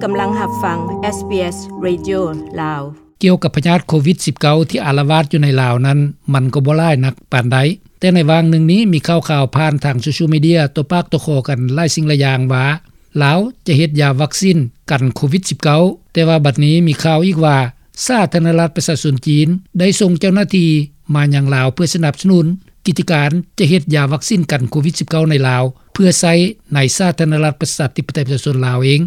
ກຳລັງຮັບຟັງ ເອສບີເອສ ເຣດິໂອ ລາວ. ກ່ຽວກັບພະຍາດໂຄວິດສິບເກົ້າ ທີ່ອາລະວາດຢູ່ໃນລາວນັ້ນ ມັນກໍບໍ່ຫຼາຍນັກປານໃດ, ແຕ່ໃນຫວ່າງໜຶ່ງນີ້ ມີຂ່າວໆ ຜ່ານທາງໂຊຊຽວມີເດຍ ຕໍ່ປາກຕໍ່ຄໍກັນຫຼາຍສິ່ງຫຼາຍຢ່າງວ່າ ລາວຈະເຮັດຢາວັກຊິນກັນໂຄວິດສິບເກົ້າ, ແຕ່ວ່າບັດນີ້ມີຂ່າວອີກວ່າ ສາທາລະນະລັດປະຊາຊົນຈີນ ໄດ້ສົ່ງເຈົ້າໜ້າທີ່ມາຍັງລາວ ເພື່ອສະໜັບສະໜູນກິດຈະການຈະເຮັດຢາວັກຊິນກັນໂຄວິດສິບເກົ້າໃນລາວ ເພື່ອໃຊ້ໃນສາທາລະນະລັດປະຊາທິປະໄຕປະຊາຊົນລາວເອງ.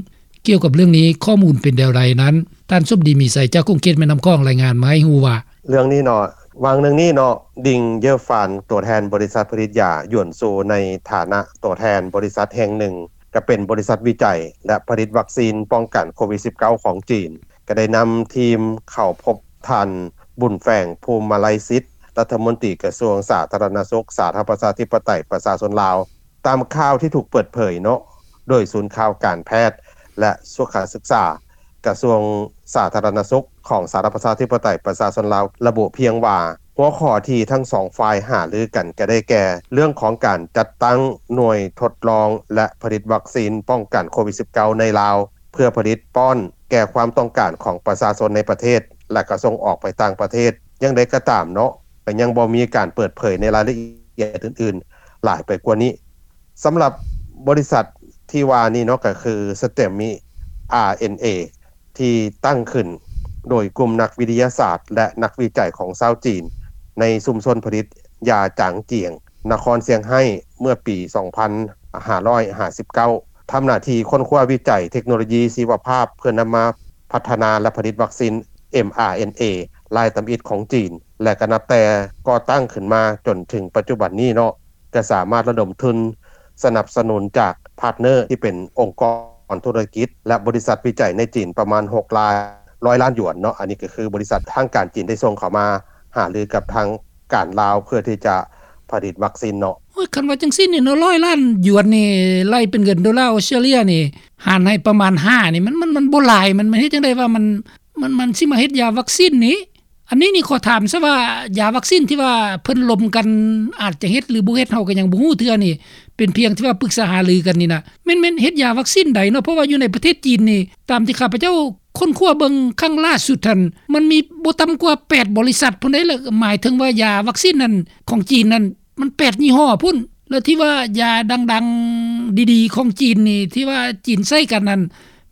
ກ່ຽວກັບເລື່ອງນີ້ ຂໍ້ມູນເປັນແນວໃດນັ້ນ ທ່ານສົມດີ ມີໄຊ ຈາກຂົງເຂດແມ່ນ້ຳຂອງ ລາຍງານມາໃຫ້ຮູ້ວ່າ ເລື່ອງນີ້ເນາະ ຫວ່າງໜຶ່ງນີ້ເນາະ ດິງ ເຢີຟານ ຕົວແທນບໍລິສັດຜະລິດຢາຢວນຊູ ໃນຖານະຕົວແທນບໍລິສັດແຫ່ງໜຶ່ງ ກະເປັນບໍລິສັດວິໄຈ ແລະ ຜະລິດວັກຊີນປ້ອງກັນໂຄວິດສິບເກົ້າຂອງຈີນ ກະໄດ້ນຳທີມເຂົ້າພົບທ່ານ ບຸນແຝງ ພູມມະໄລສິດ ລັດຖະມົນຕີກະຊວງສາທາລະນະສຸກ ສາທາລະນະລັດປະຊາທິປະໄຕປະຊາຊົນລາວ. ຕາມຂ່າວທີ່ຖືກເປີດເຜີຍເນາະ ໂດຍສູນຂ່າວການແພດ ແລະ ສຸຂະສຶກສາ ກະຊວງສາທາລະນະສຸກ ຂອງສາທາລະນະລັດປະຊາທິປະໄຕປະຊາຊົນລາວ ລະບຸພຽງວ່າ ຫົວຂໍ້ທີ່ທັງສອງຝ່າຍຫາລືກັນກະໄດ້ແກ່ ເລື່ອງຂອງການຈັດຕັ້ງໜ່ວຍທົດລອງ ແລະ ຜະລິດວັກຊີນປ້ອງກັນໂຄວິດສິບເກົ້າໃນລາວ ເພື່ອຜະລິດປ້ອນແກ່ຄວາມຕ້ອງການຂອງປະຊາຊົນໃນປະເທດ ແລະ ກະສົ່ງອອກໄປຕ່າງປະເທດ. ຢ່າງໃດກໍຕາມເນາະ ກະຍັງບໍ່ມີການເປີດເຜີຍໃນລາຍລະອຽດອື່ນໆຫຼາຍໄປກວ່ານີ້. ສຳລັບບໍລິສັດທີ່ວ່ານີ້ເນາະ ກະຄື ສະເຕັມມິ ອາ ເອັນ ເອ ທີ່ຕັ້ງຂຶ້ນໂດຍກຸ່ມນັກວິທະຍາສາດ ແລະ ນັກວິໄຈຂອງຊາວຈີນ ໃນຊຸມຊົນຜະລິດຢາຈາງຈຽງ ນະຄອນຊຽງໄຮ້ ເມື່ອປີສອງພັນຫ້າຮ້ອຍຫ້າສິບເກົ້າ ທຳໜ້າທີ່ຄົ້ນຄວ້າວິໄຈເທັກໂນໂລຢີຊີວະພາບ ເພື່ອນຳມາພັດທະນາ ແລະ ຜະລິດວັກຊີນ ເອັມ ອາ ເອັນ ເອ ລາຍທຳອິດຂອງຈີນ ແລະ ກະນັບແຕ່ກໍ່ຕັ້ງຂຶ້ນມາຈົນເຖິງປັດຈຸບັນນີ້ເນາະ ກະສາມາດລະດົມທຶນສະໜັບສະໜູນຈາກພາດເນີທີ່ເປັນອົງກອນທຸລະກິດ ແລະ ບໍລິສັດວິໄຈໃນຈີນປະມານຫົກຮ້ອຍລ້ານ ຮ້ອຍລ້ານຢວນເນາະ. ອັນນີ້ກະຄືບໍລິສັດທາງການຈີນໄດ້ສົ່ງເຂົ້າມາຫາລືກັບທາງການລາວ ເພື່ອທີ່ຈະຜະລິດວັກຊີນເນາະ. ໂອ້ຍ ຄັນວ່າຈັ່ງຊີ້ນີ້ເນາະ ຮ້ອຍລ້ານຢວນນີ້ ໄລ່ເປັນເງິນໂດລາອົດສະຕຣາເລຍນີ້ ຫານໃຫ້ປະມານຫ້ານີ້ ມັນ ມັນ ມັນບໍ່ຫຼາຍ ມັນ ມັນເຮັດຈັ່ງໃດວ່າມັນ ມັນ ມັນຊິມາເຮັດຢາວັກຊີນນີ້? ອັນນີ້ນີ້ຂໍຖາມຊະວ່າ ຢາວັກຊີນທີ່ວ່າເພິ່ນລົມກັນ ອາດຈະເຮັດຫຼືບໍ່ເຮັດ ເຮົາກະຍັງບໍ່ຮູ້ເທື່ອນີ້ ເປັນພຽງທີ່ວ່າປຶກສາຫາລືກັນນີ້ນະ ແມ່ນ ແມ່ນເຮັດຢາວັກຊີນໃດເນາະ? ເພາະວ່າຢູ່ໃນປະເທດຈີນນີ້ ຕາມທີ່ຂ້າພະເຈົ້າຄົ້ນຄວ້າເບິ່ງຄັ້ງລ່າສຸດຫັ້ນ ມັນມີບໍ່ຕ່ຳກວ່າແປດບໍລິສັດພຸ້ນໃດ໋ ລະໝາຍເຖິງວ່າຢາວັກຊີນນັ້ນ ຂອງຈີນນັ້ນ ມັນແປດຍີ່ຫໍ້ພຸ້ນ ແລະ ທີ່ວ່າຢາດັງໆ ດີໆ ຂອງຈີນນີ້ ທີ່ວ່າຈີນໃຊ້ກັນນັ້ນ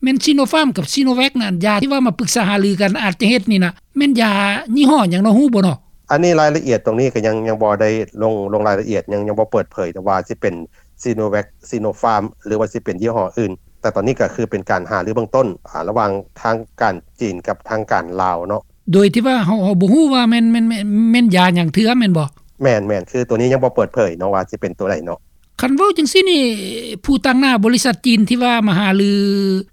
ແມ່ນຊີໂນຟາມກັບຊີໂນແວັກນັ້ນ ຢາທີ່ວ່າມາປຶກສາຫາລືກັນອາດຈະເຮັດນີ້ນະ ແມ່ນຢາຍີ່ຫໍ້ຫຍັງເນາະ ຮູ້ບໍ່ເນາະ? ອັນນີ້ລາຍລະອຽດຕົງນີ້ກະຍັງ ຍັງບໍ່ໄດ້ລົງ ລົງລາຍລະອຽດ ຍັງ ຍັງບໍ່ເປີດເຜີຍ ແຕ່ວ່າຊິເປັນຊີໂນແວັກ ຊີໂນຟາມ ຫຼືວ່າຊິເປັນຍີ່ຫໍ້ອື່ນ ແຕ່ຕອນນີ້ກະຄືເປັນການຫາລືເບື້ອງຕົ້ນ ອາ ລະຫວ່າງທາງການຈີນກັບທາງການລາວເນາະ. ໂດຍທີ່ວ່າເຮົາ ເຮົາບໍ່ຮູ້ວ່າແມ່ນ ແມ່ນ ແມ່ນ ແມ່ນຢາຫຍັງເທື່ອແມ່ນບໍ່? ແມ່ນໆ ຄືໂຕນີ້ຍັງບໍ່ເປີດເຜີຍເນາະ ວ່າຊິເປັນໂຕໃດເນາະ. ຄັນເວົ້າຈັ່ງຊີ້ນີ້ ຜູ້ຕາງໜ້າບໍລິສັດຈີນທີ່ວ່າມາຫາລື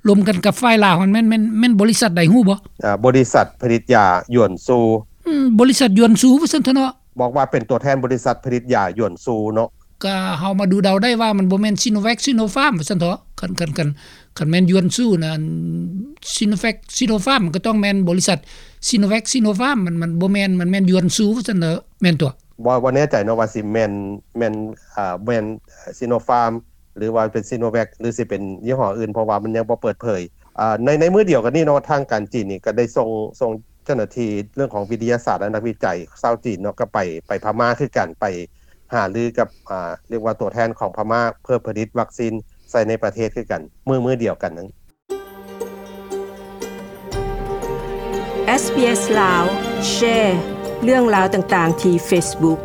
ລົມກັນກັບຝ່າຍລາວຫັ້ນ ແມ່ນ ແມ່ນ ແມ່ນບໍລິສັດໃດຮູ້ບໍ່? ອາ ບໍລິສັດຜະລິດຢາຢວນຊູ. ອືມ ບໍລິສັດຢວນຊູວ່າຊັ້ນເຖາະເນາະ. ບອກວ່າເປັນຕົວແທນບໍລິສັດຜະລິດຢາຢວນຊູເນາະ. ກະເຮົາມາດູເດົາໄດ້ວ່າມັນບໍ່ແມ່ນຊີໂນແວັກ ຊີໂນຟາມວ່າຊັ້ນເຖາະ. ຄັນ ຄັນ ຄັນ ຄັນແມ່ນຢວນຊູນະ ຊີໂນແວັກ ຊີໂນຟາມ ມັນກະຕ້ອງແມ່ນບໍລິສັດຊີໂນແວັກ ຊີໂນຟາມ ມັນ ມັນບໍ່ແມ່ນ ມັນແມ່ນຢວນຊູວ່າຊັ້ນເຖາະ ແມ່ນຕົວະ? ບໍ່ ບໍ່ແນ່ໃຈເນາະວ່າຊິແມ່ນ ແມ່ນ ອາ ແມ່ນຊີໂນຟາມ ຫຼືວ່າເປັນຊີໂນແວັກ ຫຼືຊິເປັນຍີ່ຫໍ້ອື່ນ ເພາະວ່າມັນຍັງບໍ່ເປີດເຜີຍ. ອາ ໃນ ໃນມື້ດຽວກັນນີ້ເນາະ ທາງການຈີນນີ້ກະໄດ້ສົ່ງ ສົ່ງ ເຈົ້າໜ້າທີ່ເລື່ອງຂອງວິທະຍາສາດ ແລະ ນັກວິໄຈຊາວຈີນເນາະ ກະໄປ ໄປພະມ້າຄືກັນ ໄປຫາລືກັບ ອາ ຮຽກວ່າຕົວແທນຂອງພະມ້າ ເພື່ອຜະລິດວັກຊີນໃສ່ໃນປະເທດຄືກັນ ມື້ ມື້ດຽວກັນນັ້ນ. ເອສບີເອສ ລາວ ແຊເລື່ອງລາວຕ່າງໆທີ່ເຟສບຸກ.